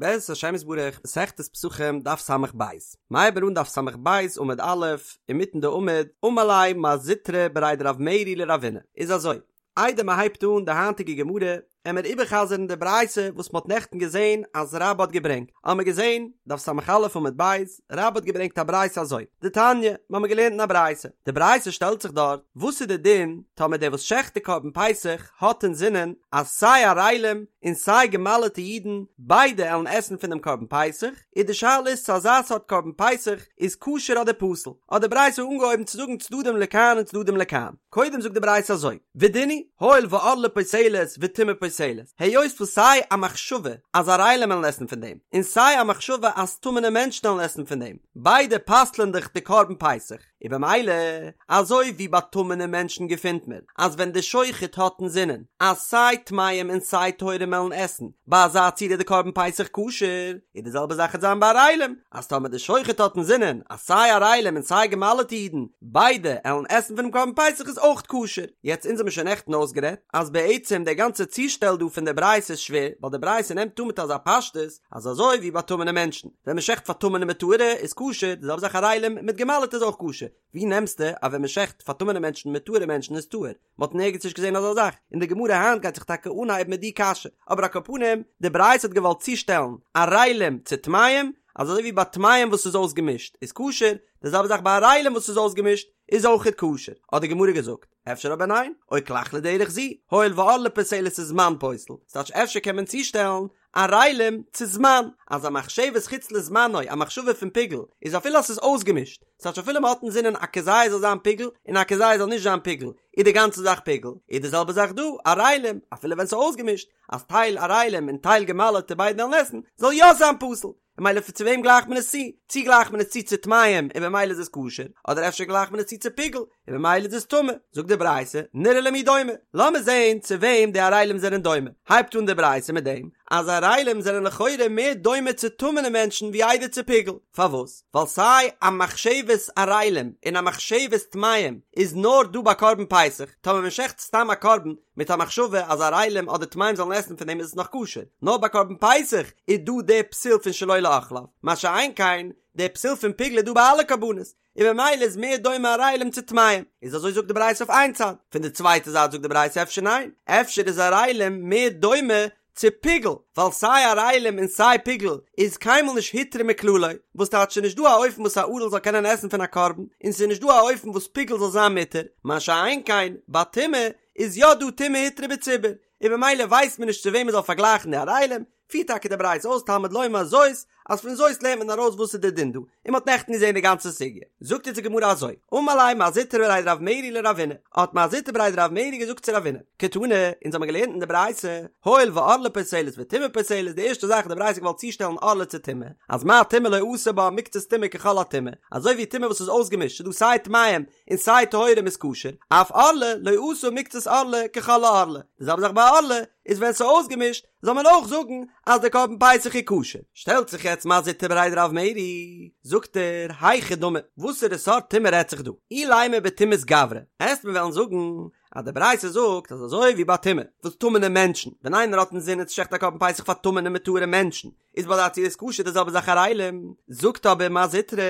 בעזרת השם יתברך, מסכת פסחים, דף ס"ב. מ'הייבט אן דף ס"ב עמוד א', אינמיטן די עמוד, אמר ליה מר זוטרא בריה דרב מרי לרבינא. איז אזוי, איידער מען הייבט אן די היינטיגע גמרא, עמער איבערחזר'ן די ברייתא וואס מ'האט נעכטן געזען אז רבה האט געברענגט. האמער געזען, דף ס"א עמוד ב', רבה האט געברענגט א ברייתא אזוי, דתניא, מ'האמער געלערנט אין א ברייתא. די ברייתא שטעלט זיך דארט, וואס איז די דין טאמער דער וואס שעכט די קרבן פסח האט אינזינען אז סיי ערלים און סיי געמל'עטע אידן ביידע עלן עסן פון דעם קרבן פסח, איז די שאלה איז צו אזא סארט קרבן פסח איז כשר אדער פסול, האט די ברייתא אנגעהויבן צו זאגן צדדים לכאן און צדדים לכאן, קודם זאגט די ברייתא אזוי, ודין הוא, הואיל וערלה פוסלת וטומאה פוסלת, היות וואס סיי א מחשבה אז ערלים עלן עסן פון דעם, און סיי א מחשבה אז טמא'נע מענטשן עלן עסן פון דעם, ביידע פסל'ען דאך די קרבן פסח. און במילא, אזוי ווי ביי טמא'נע מענטשן געפינט מען אז ווען די שוחט האט אינזינען אז סיי טמאים און סיי טהורים עלן עסן, ביי אזא ציור איז די קרבן פסח כשר, איז די זעלבע זאך עט זיין ביי ערלים, אז טאמער די שוחט האט אינזינען אז סיי ערלים און סיי געמל'עטע אידן ביידע עלן עסן פונעם קרבן פסח איז אויך כשר. יעצט אונז האבן שוין נעכטן אויסגערעדט אז בעצם די גאנצע צושטעל דא פון די ברייתא איז שווער, ווייל די ברייתא נעמט אן מיט אזא פשטות אז אזוי ווי ביי טמא'נע מענטשן, ווען מען שעכט פאר טמא'נע מיט טהור'ע איז כשר, די זעלבע זאך ערלים מיט געמל'עטע איז אויך כשר, ווי נעמסטו אז ווען מען שעכט פאר טמא'נע מענטשן מיט טהור'ע מענטשן איז טהור? מען האט נערגעץ נישט געזען אזא זאך, און די גמרא היינט גייט זיך טאקע אנהייבן מיט די קשיא, אבער על כל פנים, די ברייתא האט געוואלט צושטעלן ערלים צו טמאים, אז אזוי ווי ביי טמאים וואס איז אויסגעמישט איז כשר, די זעלבע זאך ביי ערלים וואס איז אויסגעמישט איז אויכעט כשר, האט די גמרא געזאגט, אפשר אבער ניין, או כלך לדרך זו, הואיל וערלה פוסלת וזמן פוסל, ס'טייטש אפשר קען מען צושטעלן ערלים צו זמן, אז א מחשבת חוץ לזמנו, א מחשבה פון פיגול, איז אפילו אז ס'איז אויסגעמישט, ס'טייטש אפילו מ'האט אינזינען א כזית זאל זיין פיגול און א כזית זאל נישט זיין פיגול, איז די גאנצע זאך פיגול, איז די זעלבע זאך דא, ערלים, אפילו ווען ס'איז אויסגעמישט, אז טייל ערלים און טייל געמל'עטע ביידע וועלן עסן, זאל יא זיין פסול. און ממילא צו וועם גלייכט מען עס צו? צו גלייכט מען עס צו צו טמאים און במילא איז עס כשר, אדער אפשר גלייכט מען עס צו צו פיגול און במילא איז עס טמא? זאגט די ברייתא, נראה למי דומה, לאמיר זען צו וועם די ערלים זענען דומה, הייבט אן די ברייתא מיט דעם אז ערלים זענען לכאורה מער דומה צו טמא'נע מענטשן ווי איידער צו פיגול, פארוואס? ווייל סיי א מחשבת ערלים און א מחשבת טמאים איז נאר דא ביי קרבן פסח, טאמער מען שעכט סתם א קרבן מיט א מחשבה אז ערלים אדער טמאים זאלן עסן פון דעם איז עס נאך כשר, נאר ביי קרבן פסח איז דא די פסול פון שלא לאוכליו, מה שאין כן די פסול פון פיגול איז דא ביי אלע קרבנות, און ממילא איז מער דומה ערלים צו טמאים, איז אזוי זאגט די ברייתא אויף איין צד, פון די צווייטע זייט זאגט די ברייתא אפשר ניין, אפשר איז ערלים מער דומה צו פיגול, ווייל סיי ערלים און סיי פיגול איז קיינמאל נישט הותרה מכללו, וואס טייטש ס'איז נישט דא א אופן וואס א ערל זאל קענען עסן פון א קרבן, און ס'איז נישט דא א אופן וואס פיגול זאל זיין מותר, מה שאין כן ביי טומאה איז יא דא טומאה הותרה בציבור, און ממילא ווייסט מען נישט צו וועם מען זאל פארגלייכן די ערלים, פירט טאקע די ברייתא אויס תלמוד לומר זאת, אז פון זאת לערנט מען ארויס וואס איז די דין דא, און מען האט נעכטן געזען די גאנצע סוגיא. זאגט אונז די גמרא אזוי, אמר ליה מר זוטרא בריה דרב מרי לרבינא, האט מר זוטרא בריה דרב מרי געזאגט צו רבינא, קתני, אונז האבן געלערנט אין די ברייתא, הואיל וערלה פוסלת וטומאה פוסלת, די ערשטע זאך האט די ברייתא געוואלט צושטעלן ערלה צו טומאה, אז מה טומאה לא עשה בה מקצת טומאה ככל הטומאה, אזוי ווי טומאה וואס איז אויסגעמישט, ס'איז דא סיי טמאים און סיי טהורים איז כשר, אף ערלה לא עשה מקצת ערלה ככל הערלה, די זעלבע זאך ביי ערלה, איז ווען ס'איז אויסגעמישט, זאל מען אויך זאגן אז די קרבן פסח איז כשר. שטעלט זיך יעצט מר זוטרא בריה דרב מרי, זאגט ער, היכי דמי, וואסערע סארט טומאה רעדט זיך דא? אילימא בטומאת גברא, עסט מיר וועלן זאגן אז די ברייתא זאגט אז אזוי ווי ביי טומאה, וואס טמא'נע מענטשן, ווען איינער האט אינזינען צו שעכטן א קרבן פסח פאר טמא'נע מיט טהור'ע מענטשן, איז ביי אזא ציור איז כשר די זעלבע זאך ערלים, זאגט אבער מר זוטרא,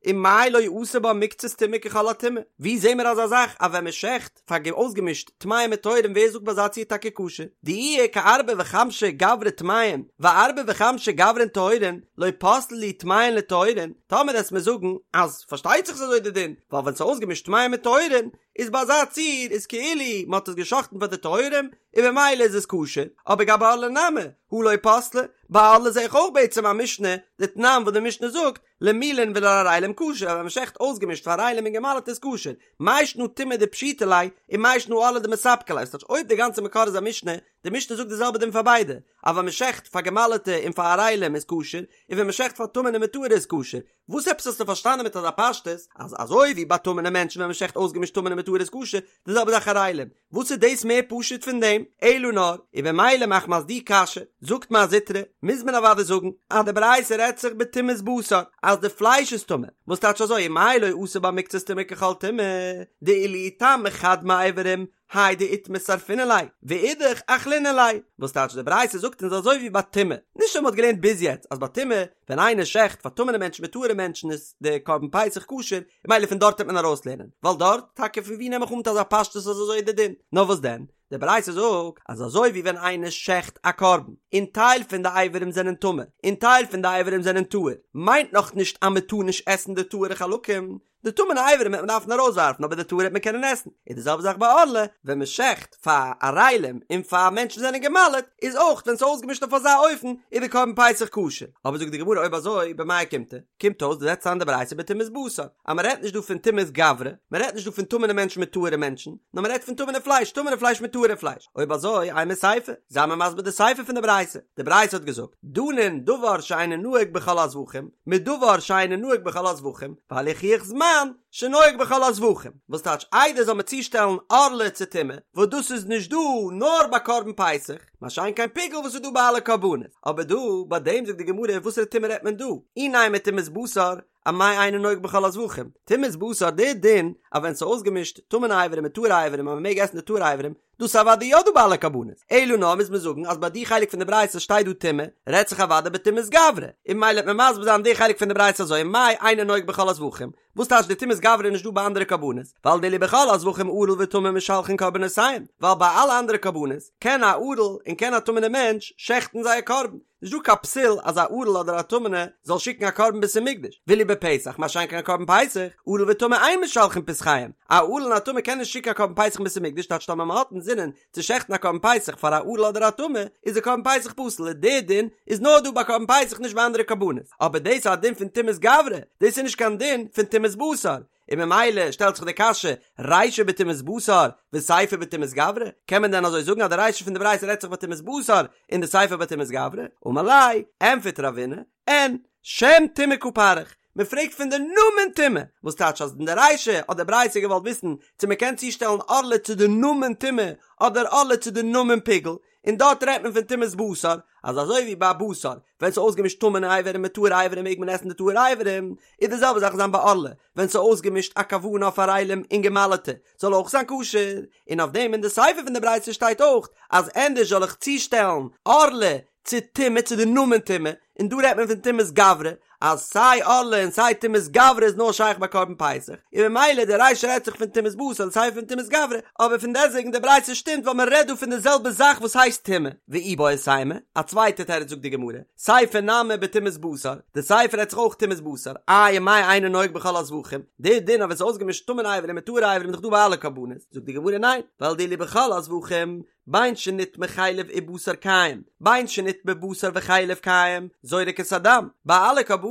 ומאי לא עשה בה מקצת טומאה ככל הטומאה? ווי זעהן מיר אזא זאך אז ווען מען שעכט פאר אויסגעמישט טמאים מיט טהורים ווער זאגט ביי אזא ציור טאקע כשר? דאי איכא ארבעה וחמשה גברי טמאים וארבעה וחמשה גברין טהורין לא פסלי להו טמאין לטהורין, טאמער עסט מיר זאגן אז פארשטייט זיך ס'איז אזוי די דין ווייל ווען ס'איז אויסגעמישט טמאים מיט טהורין איז ביי אזא ציור איז כאילו מ'האט עס געשאכטן פאר די טהורים און במילא איז עס כשר, אבער גבי ערלה נמי הא לא פסלי, ביי ערלה זעה איך אויך בעצם א משנה דתנן וואס די משנה זאגט למולין ולערלים כשר, אז ווען מ'שעכט אויסגעמישט פאר ערלים און געמל'עט איז כשר, מאי שנא טומאה דפשיטא ליה, און מאי שנא ערלה דמספקא ליה, ס'טייטש אויב די גאנצע מקור איז א משנה, די משנה זאגט די זעלבע דין פאר ביידע, אז ווען מ'שעכט פאר געמל'עטע און פאר ערלים איז כשר, און ווען מ'שעכט פאר טמא'נע מיט טהור'ע איז כשר, וואס עפעס האסטו פארשטאנען מיט אזא פשטות, אז אזוי ווי ביי טמא'נע מענטשן ווען מ'שעכט אויסגעמישט טמא'נע מיט טהור'ע איז כשר, די זעלבע זאך ערלים, וואס איז דאס מער פשוט פון דעם? אלא נאר, און במילא מחמת די קשיא, זאגט מר זוטרא, מוז מען אוודאי זאגן, אז די ברייתא רעדט זיך בטומאת בשר, אז די פלייש איז טמא, וואס טייטש אזוי ומאי לא עשה בה מקצת טומאה ככל טומאה, דאילו איטמי חד מאיברים האי דאיטמי שרפינן ליה, ואידך אכלינן ליה, וואס טייטש די ברייתא זאגט אונז אזוי ווי ביי טומאה, נישט ווי מ'האט געלערנט ביז יעצט אז ביי טומאה ווען איינער שעכט פאר טמא'נע מענטשן מיט טהור'ע מענטשן איז די קרבן פסח כשר, און ממילא פון דארט וועט מען ארויסלערנען, ווייל דארט, טאקע פון ווי נעם איך אן מיט אזא פשטות אז אזוי איז די דין, נאר וואס דען, די ברייתא זאגט אז אזוי ווי ווען איינער שעכט א קרבן און טייל פון די אברים זענען טמא און טייל פון די אברים זענען טהור, מיינט נאך נישט אז מען טאר נישט עסן די טהור'ע חלקים, די טמא'נע אברים וועט מען דארפן ארויסווארפן אבער די טהור'ע וועט מען קענען עסן, איז די זעלבע זאך ביי ערלה, ווען מען שעכט פאר ערלים און פאר מענטשן זענען גע'מל'ט, איז אויך ווען ס'איז אויסגעמישט אויף אזא אופן איז די קרבן פסח כשר, אבער זאגט די גמרא אויב אזוי במאי אוקימתא, קומט אויס דו זעצט איין די ברייתא בטומאת בשר, אז מען רעדט נישט דא פון טומאת גברא, מען רעדט נישט דא פון טמא'נע מענטשן מיט טהור'ע מענטשן, נאר מען רעדט פון טמא'נע פלייש, טמא'נע פלייש מיט טהור'ע פלייש, אויב אזוי אימא סיפא, זיי מיר מסביר די סיפא פון די ברייתא, די ברייתא האט געזאגט, דנין דבר שאינו נוהג בכל הזבחים, מדבר שאינו נוהג בכל הזבחים, ואל יוכיח זמן שנוהג בכל הזבחים, וואס טייטש איידער זאל מען צושטעלן ערלה צו טומאה, וואס דאס איז נישט דא נאר ביי קרבן פסח, מה שאין כן פיגול וואס איז דא ביי אלע קרבנות, אבער דא ביי דעם זאגט די גמרא וואסערע טומאה רעדט מען דא, אי נימא טומאת בשר, אמאי אינו נוהג בכל הזבחים, טומאת בשר די דין אז ווען ס'איז אויסגעמישט טמא'נע אברים מיט טהור'ע אברים אז מ'מעג עסן די טהור'ע אברים, דאס איז אוודאי יא דא ביי אלע קרבנות, אלא נאר מוז מען זאגן אז ביי די חלק פון די ברייתא שטייט דא טומאה, רעדט זיך אוודאי בטומאת גברא, און ממילא וועט מען מסביר זיין די חלק פון די ברייתא אזוי מאי אינו נוהג בכל הזבחים, וואס טייטש די טומאת גברא איז נישט דא ביי אנדערע קרבנות, ווייל דאילו בכל הזבחים ערל וטמא משלחין קרבנותיהם, ווייל ביי אלע אנדערע קרבנות קען א ערל און קען א טמא'נע מענטש שעכטן זייער קרבן, נישט דא קיין פסול אז א ערל אדער א טמא'נע זאל שיקן א קרבן בית המקדש, ואילו בפסח מה שאין כן א קרבן פסח, ערל וטמא אין משלחין פסחיהם, א ערל און א טמא קען נישט שיקן א קרבן פסח אין בית המקדש טייטש טאמער מען האט אינזינען צו שעכטן א קרבן פסח פאר א ערל אדער א טמא איז די קרבן פסח פסול און די דין איז נאר דא ביי קרבן פסח נישט ביי אנדערע קרבנות, אבער דאס איז א דין פון טומאת גברא, דאס איז נישט קיין דין פון טומאת בשר, און ממילא שטעלט זיך די קשיא, רישא בטומאת בשר וסיפא בטומאת גברא, קען מען דען אזוי זאגן אז די רישא פון די ברייתא רעדט זיך בטומאת בשר און די סיפא בטומאת גברא? אמר ליה, ענפערט רבינא, אין, שם טומאה קא פריך, מען פרעגט פון די נאמען טומאה, וואס טייטש אז אין די רישא האט די ברייתא געוואלט וויסן צו מען קען צושטעלן ערלה צו די נאמען טומאה אדער ערלה צו די נאמען פיגול, און דארט רעדט מען פון טומאת בשר, אז אזוי ווי ביי בשר, ווען ס'איז אויסגעמישט טמא'נע אברים מיט טהור'ע אברים מעג מען עסן די טהור'ע אברים, איז די זעלבע זאך זיין ביי ערלה, ווען ס'איז אויסגעמישט א כוונה אויף ערלים און גע'מל'טע, זאל אויך זיין כשר, און אויף דעם אין די סיפא פון די ברייתא שטייט אויך, אז ענדערש זאל איך צושטעלן ערלה צו טומאה צו די נאמען טומאה, און דא רעדט מען פון טומאת גברא, אז סיי ערלה און סיי טומאת גברא איז נאר שייך ביי קרבן פסח, און ממילא די רישא רעדט זיך פון טומאת בשר און סיפא פון טומאת גברא, אבער פון דעסטוועגן די ברייתא שטימט ווייל מען רעדט דא פון די זעלבע זאך וואס הייסט טומאה. ואיבעית אימא, א צווייטע תירוץ זאגט די גמרא, סיפא נמי בטומאת בשר, די סיפא רעדט זיך אויך טומאת בשר, איי ומאי אינו נוהג בכל הזבחים, די דין אז ווען ס'איז אויסגעמישט טמא'נע אברים מיט טהור'ע אברים איז דאך דא ביי אלע קרבנות, זאגט די גמרא ניין, ווייל דאילו בכל הזבחים, בין שנטמא חלב ובשר קיים, בין שנטמא בשר וחלב קיים, זורק את הדם. ביי אלע קרבנות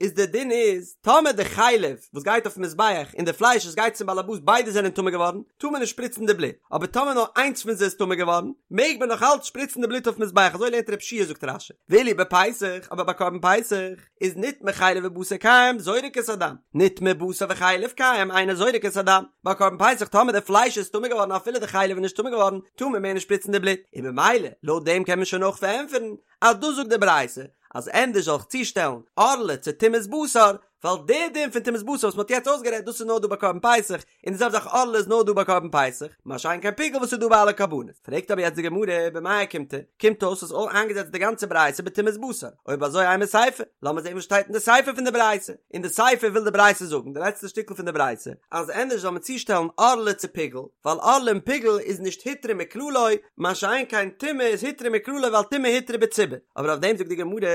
איז די דין איז, טאמער די חלב וואס גייט אויפן מזבח און די פלייש וואס גייט צום באלעבאס ביידע זענען טמא געווארן, טאר מען נישט שפריצן די בלוט, אבער טאמער נאר איינס פון זיי איז טמא געווארן, מעג מען נאך אלץ שפריצן די בלוט אויפן מזבח, אזוי לערנט רב שיע זאגט רש"י, ואילו בפסח, אבער ביי קרבן פסח, איז נטמא חלב ובשר קיים זורק את הדם, נטמא בשר וחלב קיים אינו זורק את הדם, ביי קרבן פסח טאמער די פלייש איז טמא געווארן אפילו די חלב איז נישט טמא געווארן טאר מען מער נישט שפריצן די בלוט, און במילא לויט דעם קען מען שוין אויך פארענטפערן אז דאס זאגט די ברייתא אז ענדערש זאל איך צושטעלן ערלה צו טומאת בשר, ווייל די דין פון טומאת בשר וואס מען האט יעצט אויסגערעדט דאס איז נאר דא ביי קרבן פסח, און די זעלבע זאך ערלה איז נאר דא ביי קרבן פסח, מה שאין כן פיגול וואס איז דא ביי אלע קרבנות. פרעגט אבער יעצט די גמרא, במאי אוקימתא, קומט אויס אז אויך איינגעזעצט די גאנצע ברייתא בטומאת בשר, אויב אזוי אימא סיפא, לאמיר זען וואס שטייט אין די סיפא פון די ברייתא, אין די סיפא וויל די ברייתא זאגן, די לעצטע שטיקל פון די ברייתא, אז ענדערש זאל מען צושטעלן ערלה צו פיגול, ווייל ערלה און פיגול איז נישט הותרה מכללו, מה שאין כן טומאה איז הותרה מכללו ווייל טומאה הותרה בציבור, אבער אויף דעם זאגט די גמרא,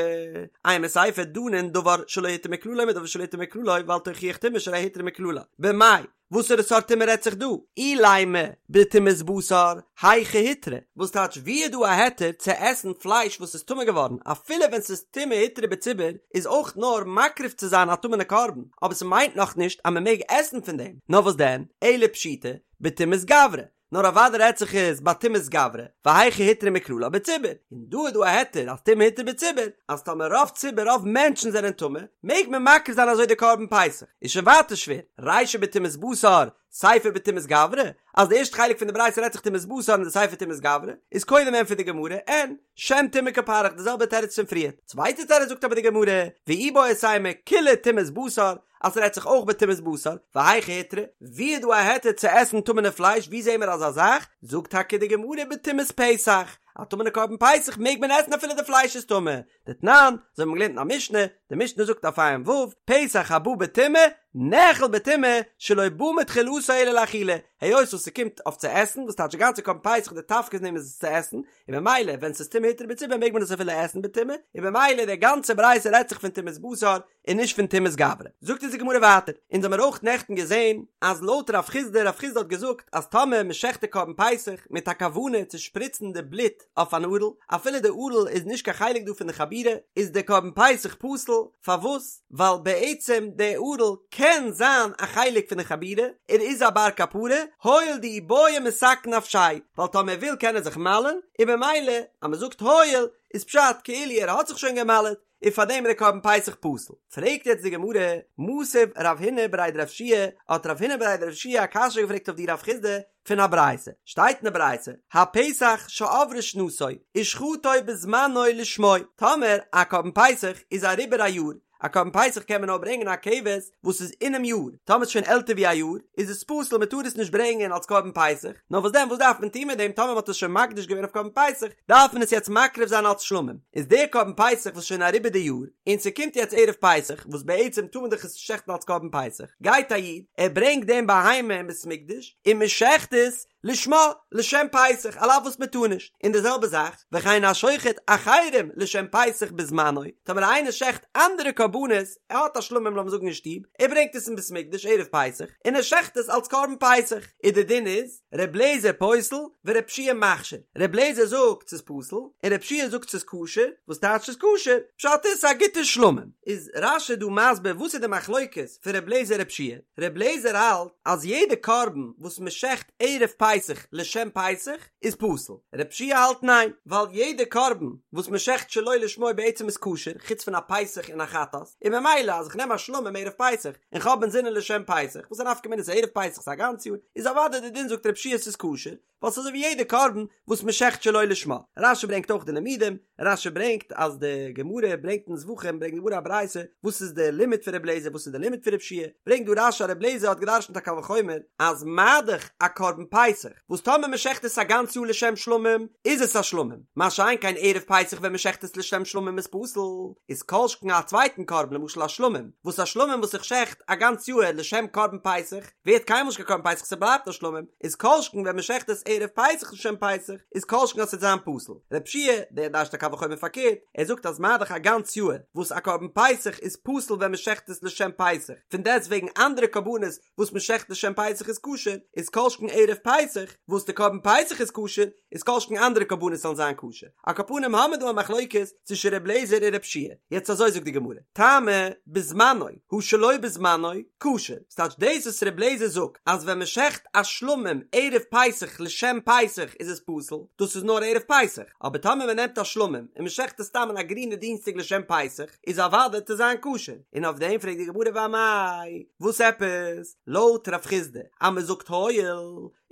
אימא סיפא דנין דבר שלא הותר מכללו מדבר שלא הותר מכללו ואל תוכיח טומאה שהרי הותרה מכללה, במאי, וואסערע סארט טומאה רעדט זיך דא? אילימא בטומאת בשר, היכא הותרה, וואס טייטש ווי איז דא א היתר צו עסן פלייש וואס איז טמא געווארן אפילו ווען ס'איז טומאה הותרה בציבור איז אויך נאר מקריב צו זיין א טמא'נע קרבן אבער ס'מיינט נאכנישט אז מ'מעג עסן פון דעם, נאר וואס דען, אלא פשיטא, בטומאת גברא, נאר אוודאי רעדט זיך עס ביי טומאת גברא, והיכא הותרה מכללה בציבור, און דא איז דא א היתר אז טומאה הותרה בציבור, אז טאמער רוב ציבור רוב מענטשן זענען טמא, מעג מען מקריב זיין אזוי די קרבן פסח, איז שוין ווייטער שווער, רישא בטומאת בשר, סיפא בטומאת גברא, אז די ערשטע חלק פון די ברייתא רעדט זיך טומאת בשר און די סיפא טומאת גברא, איז קודם ענטפערט די גמרא, אין, שם טומאה קא פריך די זעלבע תירוץ פון פריער. צווייטע תירוץ זאגט אבער די גמרא, ואיבעית אימא כולה טומאת בשר, אז ס'רעדט זיך אויך בטומאת בשר, והיכא הותרה, ווי איז דא א היתר צו עסן טמא'נע פלייש, ווי זעהן מיר אזא זאך? זאגט טאקע די גמרא בטומאת פסח, א טמא'נע קרבן פסח מעג מען עסן אפילו די פלייש איז טמא, דתנן, אזוי האבן מיר געלערנט אין א משנה, די משנה זאגט אויף ע"ו, פסח הבא בטומאה, נאכל בטומאה, שלא בא מתחילתו אלא לאכילה, היות וואס ס'קומט אויף צו עסן, וואס טייטש די גאנצע קרבן פסח די תפקיד פון דעם איז עס צו עסן, און במילא ווען ס'איז טומאה הותרה בציבור מעג מען עס אפילו עסן בטומאה, און במילא די גאנצע ברייתא רעדט זיך פון טומאת בשר, און נישט פון טומאת גברא. זאגט אונז די גמרא ווייטער, אונז האמיר אויך נעכטן געזען אז לויט רב חיסדא, רב חיסדא האט געזאגט אז טאמער מען שעכט די קרבן פסח מיט א כוונה צו שפריצן די בלוט אויף אן ערל, אפילו די ערל איז נישט קיין חלק דא פון די חבורה, איז די קרבן פסח פסול, פארוואס? ווייל בעצם די ערל קען זיין א חלק פון די חבורה, ער איז א בר כפרה, הואיל דאי בעי מתקן נפשיה, ווייל טאמער ער וויל קען ער זיך מל'ן, און במילא אז מען זאגט הואיל איז פשט כאילו ער האט זיך שוין גע'מל'ט, און פאר דעם איז די קרבן פסח פסול. פרעגט יעצט די גמרא, מתיב רב הונא בריה דרב יהושע, האט רב הונא בריה דרב יהושע א קשיא געפרעגט אויף די רב חיסדא פון א ברייתא, שטייט אין די ברייתא, הפסח שעברה שנתו ושחטו בזמנו לשמו, טאמער א קרבן פסח איז אריבער א יאר, א קרבן פסח קען מען נאר ברענגען א כבש וואס איז אינעם יאר, טאמער ס'איז שוין עלטער ווי א יאר איז עס פסול מען טאר עס נישט ברענגען אלס קרבן פסח, נאר וואס דען וואס דארף מען טון מיט דעם טאמער מען האט עס שוין מקדיש געווען אויף קרבן פסח דארף מען עס יעצט מקריב זיין אלס שלמים, איז דער קרבן פסח וואס איז שוין אריבער די יאר און ס'קומט יעצט ערב פסח וואס בעצם טאר מען דאך עס נישט שעכטן אלס קרבן פסח, גייט א איד ער ברענגט דעם בהמה אין בית מקדש און מען שעכט עס לשמה, לשם פסח, על אף וואס מען טאר נישט, און די זעלבע זאך, וכן השוחט אחרים לשם פסח בזמנו, טאמער איינער שעכט אנדערע קרבנות, ער האט א שלמים לאמיר זאגן אין שטוב, ער ברענגט עס אין בית מקדש ערב פסח, און ער שעכט עס אלס קרבן פסח, איז די דין איז, ר' לעזער פוסל, ור' יהושע מכשיר, ר' לעזער זאגט ס'איז פסול, און ר' יהושע זאגט ס'איז כשר, וואס טייטש ס'איז כשר? פשט איז ס'איז א גוטע שלמים. איז רש"י דא מסביר וואס איז די מחלוקת פון ר' לעזער ר' יהושע? ר' לעזער האלט אז יעדע קרבן וואס מען שעכט ערב פסח לשם פסח איז פסול, ר' יהושע האלט ניין, ווייל יעדע קרבן וואס מען שעכט שלא לשמו בעצם איז כשר, חוץ פון א פסח און א חטאת, און ממילא אז איך נעם א שלמים ערב פסח און כ'האב אינזינען לשם פסח, וואס איז א נפקא מינה ס'איז ערב פסח ס'איז א גאנץ יאר, איז אוודאי די דין זאגט ר' יהושע ס'איז כשר, ווייל ס'איז אזוי ווי יעדע קרבן וואס מען שעכט שלא לשמה. רש"י ברענגט אויך די לימודים, רש"י ברענגט אז די גמרא ברענגט אין זבחים ברענגט די גמרא א ברייתא וואס איז די לימוד פון רבי אליעזר וואס איז די לימוד פון רבי יהושע, ברענגט דא רש"י אז רבי אליעזר האט געדרשנט א קל וחומר אז מה דאך א קרבן פסח וואס טאמער מען שעכט עס א גאנץ יאר לשם שלמים איז עס א שלמים, מה שאין כן ערב פסח ווען מען שעכט עס לשם שלמים איז פסול, איז כל שכן א צווייטן קרבן למשל א שלמים וואס א שלמים וואס איך שעכט א גאנץ יאהר לשם קרבן פסח ווערט קיינמאל נישט קיין קרבן פסח ס'בלייבט א שלמים, איז כל שכן ווען מ'שעכט עס ערב פסח לשם פסח, איז כל שכן אז ס'וועט זיין פסול. רב שיע, דער דרש'ט א קל וחומר פארקערט, ער זאגט אז מה דאך א גאנץ יאהר וואס א קרבן פסח איז פסול ווען מ'שעכט עס לשם פסח, פון דעסט וועגן אנדערע קרבנות וואס מ'שעכט לשם פסח איז כשר, איז כל שכן ערב פסח וואס די קרבן פסח איז כשר, איז כל שכן אנדערע קרבנות זאלן זיין כשר. על כל פנים האמיר דא א מחלוקת צווישן ר' לעזער און רב שיע. יעצט אזוי זאגט די גמרא, טעמא בזמנו הא שלא בזמנו כשר, ס'טייטש דאס וואס ר' לעזער זאגט אז ווען מ'שעכט א שלמים ערב פסח לשם פסח איז עס פסול, דאס איז נאר ערב פסח, אבער טאמער מ'נעמט א שלמים און מ'שעכט עס סתם אין א גרינע דינסטאג לשם פסח איז אוודאי וועט עס זיין כשר, און אויף דעם פרעגט די גמרא ואמאי, וואס עפעס? לויט רב חיסדא אז מ'זאגט הואיל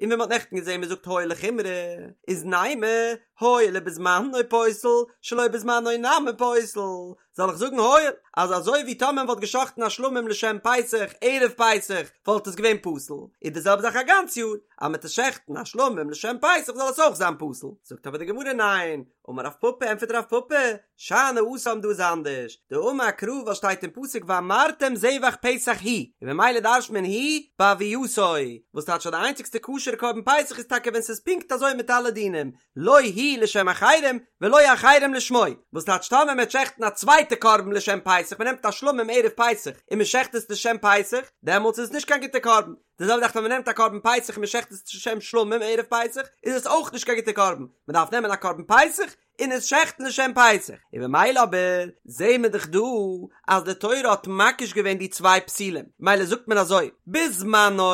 און ווי מ'האט נעכטן געזען מ'זאגט הואיל לחומרא, איז נימא הואיל ובזמנו פוסל, שלא בזמנו נמי פוסל, זאל איך זאגן הואיל, אז אזוי ווי טאמער מ'וואלט געשאכטן א שלמים לשם פסח ערב פסח וואלט עס געווען פסול, איז די זעלבע זאך א גאנץ יאר, אז מ'טוט שעכטן א שלמים לשם פסח זאל עס אויך זיין פסול, זאגט אבער די גמרא ניין, אמר רב פפא ענטפערט רב פפא, שאני התם דא איז אנדערש, דאמר קרא וואס שטייט אין פסוק ואמרתם זבח פסח הוא, און ממילא דרש'ט מען הוא בהוייתו, וואס טייטש אז די איינציגסטע כשר'ע קרבן פסח איז טאקע ווען ס'איז פונקט אזוי מיט אלע דינים, לא הוא לשם אחרים ולא אחרים לשמו, וואס טייטש טאמער מ'וועט שעכטן א צווייטע קרבן לשם פסח, מ'נעמט א שלמים ערב פסח און מ'שעכט עס לשם פסח, דעמאלטס איז עס נישט קיין גוטע קרבן, די זעלבע זאך ווען מען נעמט א קרבן פסח און מען שעכט עס לשם שלמים ערב פסח, איז עס אויך נישט קיין גוטע קרבן, מען דארף נעמען א קרבן פסח און עס שעכטן לשם פסח, און במילא אבער זעהן מיר דאך דא אז די תורה האט מקיש געווען די צוויי פסולים, ממילא זאגט מען אזוי, בזמנו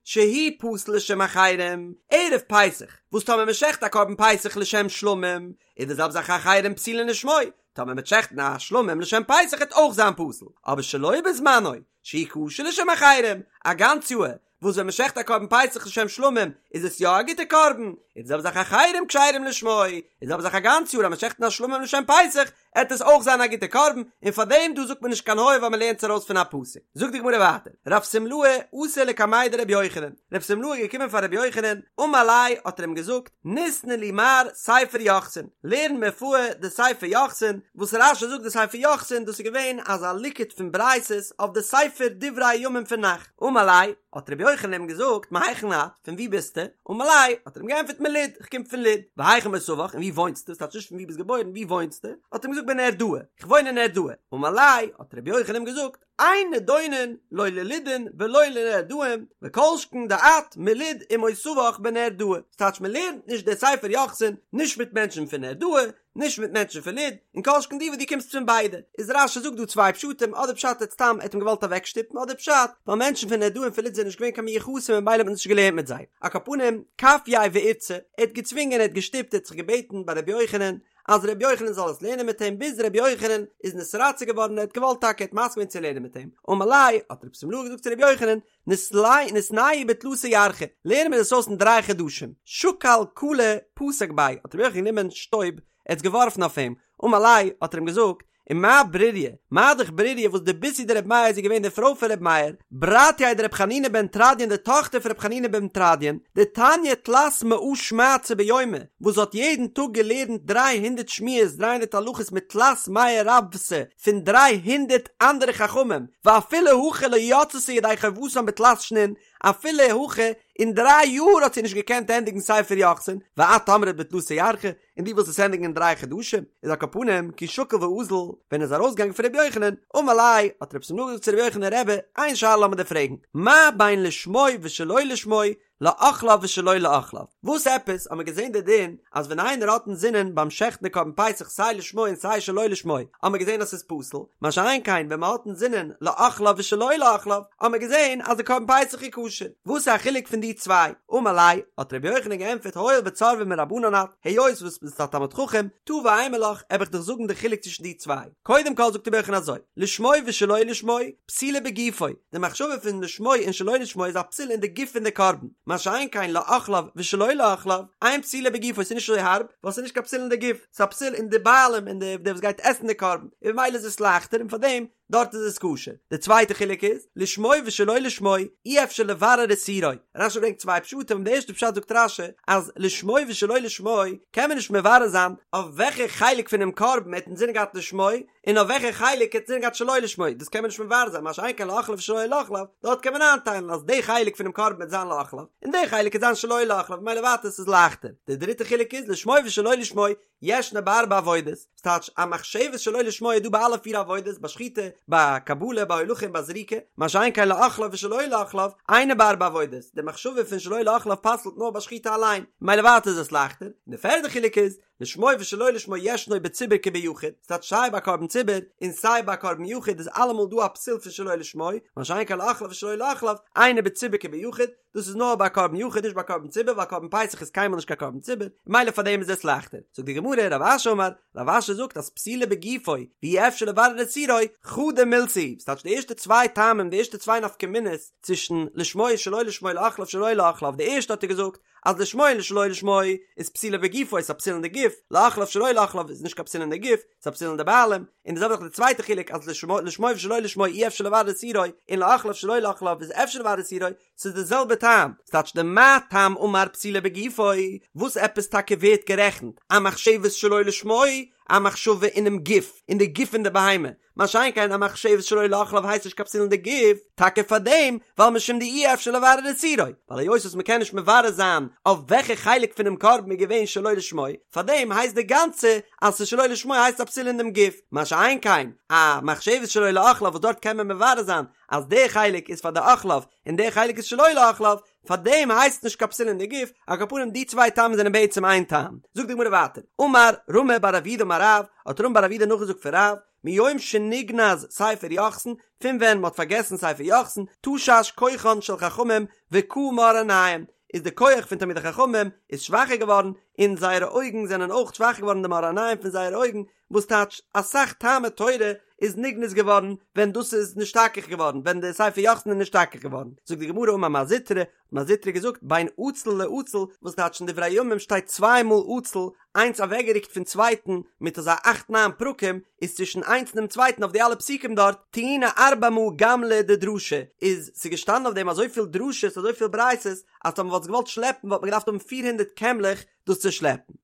שהוא פסול לשם אחרים, ערב פסח, וואס טאמער מען שעכט א קרבן פסח לשם שלמים, איז די זעלבע זאך אחרים פסולין לשמו, טאמער מען וועט שעכטן א שלמים לשם פסח וועט אויך זיין פסול, אבער שלא בזמנו, שהוא כשר לשם אחרים, א גאנץ יאהר, וואס ווען מ'שעכט א קרבן פסח לשם שלמים איז עס יא א גוטע קרבן, און די זעלבע זאך אחרים כשרים לשמו, און די זעלבע זאך א גאנץ יאר אז מ'שעכט א שלמים לשם פסח, עט עס אויך זיין א גוטע קרבן, און פאר דעם דא זאגט מען נישט קיין היה ווייל מ'לערנט עס ארויס פון א פסוק. זאגט די גמרא ווייטער, רב שמלאי אתא לקמיה דרבי יוחנן, רב שמלאי איז געקומען פאר רבי יוחנן, אמר ליה האט ער אים געזאגט, ניתני לי מר ספר יוחסין, לערן מיר פאר די ספר יוחסין, וואס רש"י זאגט די ספר יוחסין דאס איז געווען אזא ליקוט פון ברייתות אויף די ספר דברי הימים פון נ"ך, אמר ליה, האט רבי יוחנן אים געזאגט, מהיכן את, פון וואו ביסטו? אמר ליה, האט ער אים געענטפערט מלוד, איך קום פון לוד, והיכן מותבך, און וואו וואוינסטו, ס'טייטש נישט פון וואו ביסט געבוירן, וואו וואוינסטו? האט ער אים געזאגט בנהרדעא, איך וואוין אין נהרדעא, אמר ליה, האט רבי יוחנן אים געזאגט, אין נידונין לא ללודין ולא לנהרדעין, וכל שכן דאת מלוד ומותבך בנהרדעא, ס'טייטש מ'לערנט נישט די ספר יוחסין נישט מיט מענטשן פון נהרדעא, נישט מיט מענטשן פון לוד, און כל שכן דו וואס דו קומסט פון ביידע. איז רש"י זאגט דא צוויי פשטים, אדער פשט איז סתם ער האט אים געוואלט אוועקשטופן, אדער פשט ווייל מענטשן פון נהרדעא און פון לוד זענען נישט געווען קיין מיוחסים און ממילא האט מען נישט געלערנט מיט זיי. על כל פנים, כפייה ואירתיה, ער האט געצווינגען ער האט געשטופט ער האט זיך געבעטן ביי רבי יוחנן אז רבי יוחנן זאל עס לערנען מיט אים ביז רבי יוחנן איז נתרצה געווארן ער האט געוואלט טאקע ער האט מסכים געווען צו לערנען מיט אים, אמר ליה, האט רב שמלאי געזאגט צו רבי יוחנן, ניתנייה בתלתא ירחי, לערן מיר דאס אויס אין דריי חדשים, שקל קלא פתק ביה, האט רבי יוחנן גענומען שטויב, ער האט עס געווארפן אויף אים, אמר ליה, האט ער אים געזאגט, ומה ברוריה, מה דאך ברוריה וואס דביתהו דרבי מאיר איז געווען די פרוי פון רבי מאיר, ברתיה דרבי חנינא בן תרדיון די טאכטער פון רבי חנינא בן תרדיון, דתניא תלת מאה שמעתתא ביומא, וואס האט יעדן טאג געלערנט דריי הונדערט שמועות 300 הלכות מתלת מאה רבוותא, פון 300 אנדערע חכמים, ואפילו הכי לא יצתה ידי חובתן בתלת שנין, אפילו הכי אין דריי יאר האט זי נישט געקענט ענדיגן ספר יוחסין, ואת אמרת בתלתא ירחי, און דו ווילסט עס ענדיגן אין דריי חדשים, איז על כל פנים כי שקיל ואזיל, ווען ער איז ארויסגעגאנגען פון רבי יוחנן, אמר ליה, האט רב שמלאי געזאגט צו רבי יוחנן רבי, איין שאלה לאמיר דיר פרעגן, מה בין לשמו ושלא לשמו, לאוכליו ושלא לאוכליו. וואס עפעס האט מען געזען די דין אז ווען איינער האט אינזינען ביים שעכטן די קרבן פסח סיי לשמו און סיי שלא לשמו האט מען געזען אז ס'איז פסול, מה שאין כן ווען מ'האט אינזינען לאוכליו ושלא לאוכליו האט מען געזען אז די קרבן פסח איז כשר. וואס איז א חילוק פון די צוויי? אמר ליה, האט רבי יוחנן געענטפערט הואיל וצורבא מרבנן את, היות וואס ביסט א תלמיד חכם, תא ואימא לך, וועל איך דיך זאגן די חילוק צווישן די צוויי. קודם כל זאגט רבי יוחנן אזוי, לשמו ושלא לשמו, פסולה בגופו, די מחשבה פון לשמו און שלא לשמו איז א פסול אין די גוף פון די קרבן, מה שאין כן לאוכליו ושלא לאוכליו, אין פסולה בגופו, ס'איז נישט אזוי הארב, ווייל ס'איז נישט קיין פסול אין די גוף, ס'איז א פסול אין די בעלים, אין די וואס גייט עסן די קרבן, און ממילא איז עס לייכטער און פארדעם דארט איז עס כשר. די צווייטע חילוק איז, לשמו ושלא לשמו, אי אפשר לברר איסורו. רשי ברענגט צוויי פשטים, די ערשטע פשט זאגט רשי, אז לשמו ושלא לשמו קען מען נישט מברר זיין אויף וועלכע חלק פונעם קרבן ער האט אינזין געהאט לשמו, און אויף וועלכע חלק ער האט אינזין געהאט שלא לשמו, דאס קען מען נישט מברר זיין, מה שאין כן לאוכליו ושלא לאוכליו, דארט קען מען איינטיילן אז די חלק פונעם קרבן וועט זיין לאוכליו, און די חלק וועט זיין שלא לאוכליו, ממילא ווייטער עס איז לייכטער. די דריטע חילוק איז לשמו ושלא לשמו, ישנה בארבע עבודות, ס'טייטש א מחשבת שלא לשמו איז דא ביי אלע פיר עבודות, ביי שחיטה, ביי קבלה, ביי הולכה און ביי זריקה, מה שאין כן לאוכליו ושלא לאוכליו, אינה בארבע עבודות, די מחשבה פון שלא לאוכליו פסל'ט נאר ביי שחיטה אליין, ממילא ווייטער איז עס לייכטער, און די פערדע חילוק איז, לשמו ושלא לשמו ישנו בציבור כביחיד, ס'טייטש סיי ביי קרבן ציבור און סיי ביי קרבן יחיד איז אלעמאל דא א פסול פון שלא לשמו, מה שאין כן לאוכליו ושלא לאוכליו, אינו בציבור כביחיד, דאס איז נאר ביי קרבן יחיד נישט ביי קרבן ציבור ווייל קרבן פסח איז קיינמאל נישט קיין קרבן ציבור, ממילא פאר דעם איז עס לייכטער. זאגט די גמרא, רב אשי אמר, רב אשי זאגט אז פסולה בגופו, ואי אפשר לברר איסורו, חדא מילתא היא, ס'טייטש די ערשטע צוויי טעמים, די ערשטע צוויי נפקא מינות צווישן לשמו און שלא לשמו לאוכליו שלא לאוכליו, די ערשטע האט ער געזאגט אז לשמו און שלא לשמו איז פסולה בגופו איז א פסול אין די גוף, לאוכליו שלא לאוכליו איז נישט קיין פסול אין די גוף, ס'איז א פסול אין די בעלים, און די זעלבע זאך די צווייטע חילוק אז לשמו לשמו ושלא לשמו אי אפשר לברר איסורו, און לאוכליו שלא לאוכליו איז אפשר לברר איסורו, ס'איז די זעלבע טעם, ס'טייטש דמה טעם אמר פסולה בגופו, וואס עפעס טאקע ווערט גערעכנט א מחשבת שלא לשמו, א מחשבה אינעם גוף, אין די גוף פון די בהמה, מה שאין כן א מחשבת שלא לאוכליו הייסט נישט קיין פסול אין די גוף, טאקע פאר דעם, ווייל משום דאי אפשר לברר איסורו, ווייל היות וואס מ'קען נישט מברר זיין אויף וועלכע חלק פונעם קרבן איז געווען שלא לשמו, פאר דעם הייסט די גאנצע אז ס'איז שלא לשמו הייסט א פסול אין דעם גוף, מה שאין כן א מחשבת שלא לאוכליו וואס דארט קען מען מברר זיין אז די חלק איז פאר די אוכליו און די חלק איז שלא לאוכליו, פאר דעם הייסט נישט קיין פסול אין די גוף, על כל פנים די צוויי טעמים זענען בעצם איין טעם. זאגט די גמרא ווייטער, אמר רמי בר אבידא אמר רב, האט רמי בר אבידא נאכגעזאגט פון רב, מיום שנגנז ספר יוחסין, פון ווען מ'האט פארגעסן ספר יוחסין, תשש כוחן של חכמים וקהו מאור עיניהם, איז די כח פון תלמידי חכמים איז שוואכער געווארן, און זייערע אויגן זענען אויך שוואכער געווארן די מאור עיניים פון זייערע אויגן, וואס טייטש אסאך טעמי תורה. איז נגנז געווארן ווען דאס איז נשתכח געווארן ווען די ספר יוחסין איז נשתכח געווארן, זאגט די גמרא אמר מר זוטרא, האט מר זוטרא געזאגט בין עצל לעצל, וואס טייטש אין דברי הימים שטייט צוויי מאל עצל, איינס אוועקגערוקט פון צווייטן מיט אזא אכט ניין פרקים, איז צווישן איינס און דעם צווייטן אויף די אלע פסוקים דארט, טעיני ארבע מאה גמלי דדרשי, איז ס'געשטאנען אויף דעם אזויפיל דרשות אזויפיל ברייתות, אז טאמער מ'וואלט עס געוואלט שלעפן וואלט מען געדארפט האבן פיר הונדערט קעמלעך דאס צו שלעפן.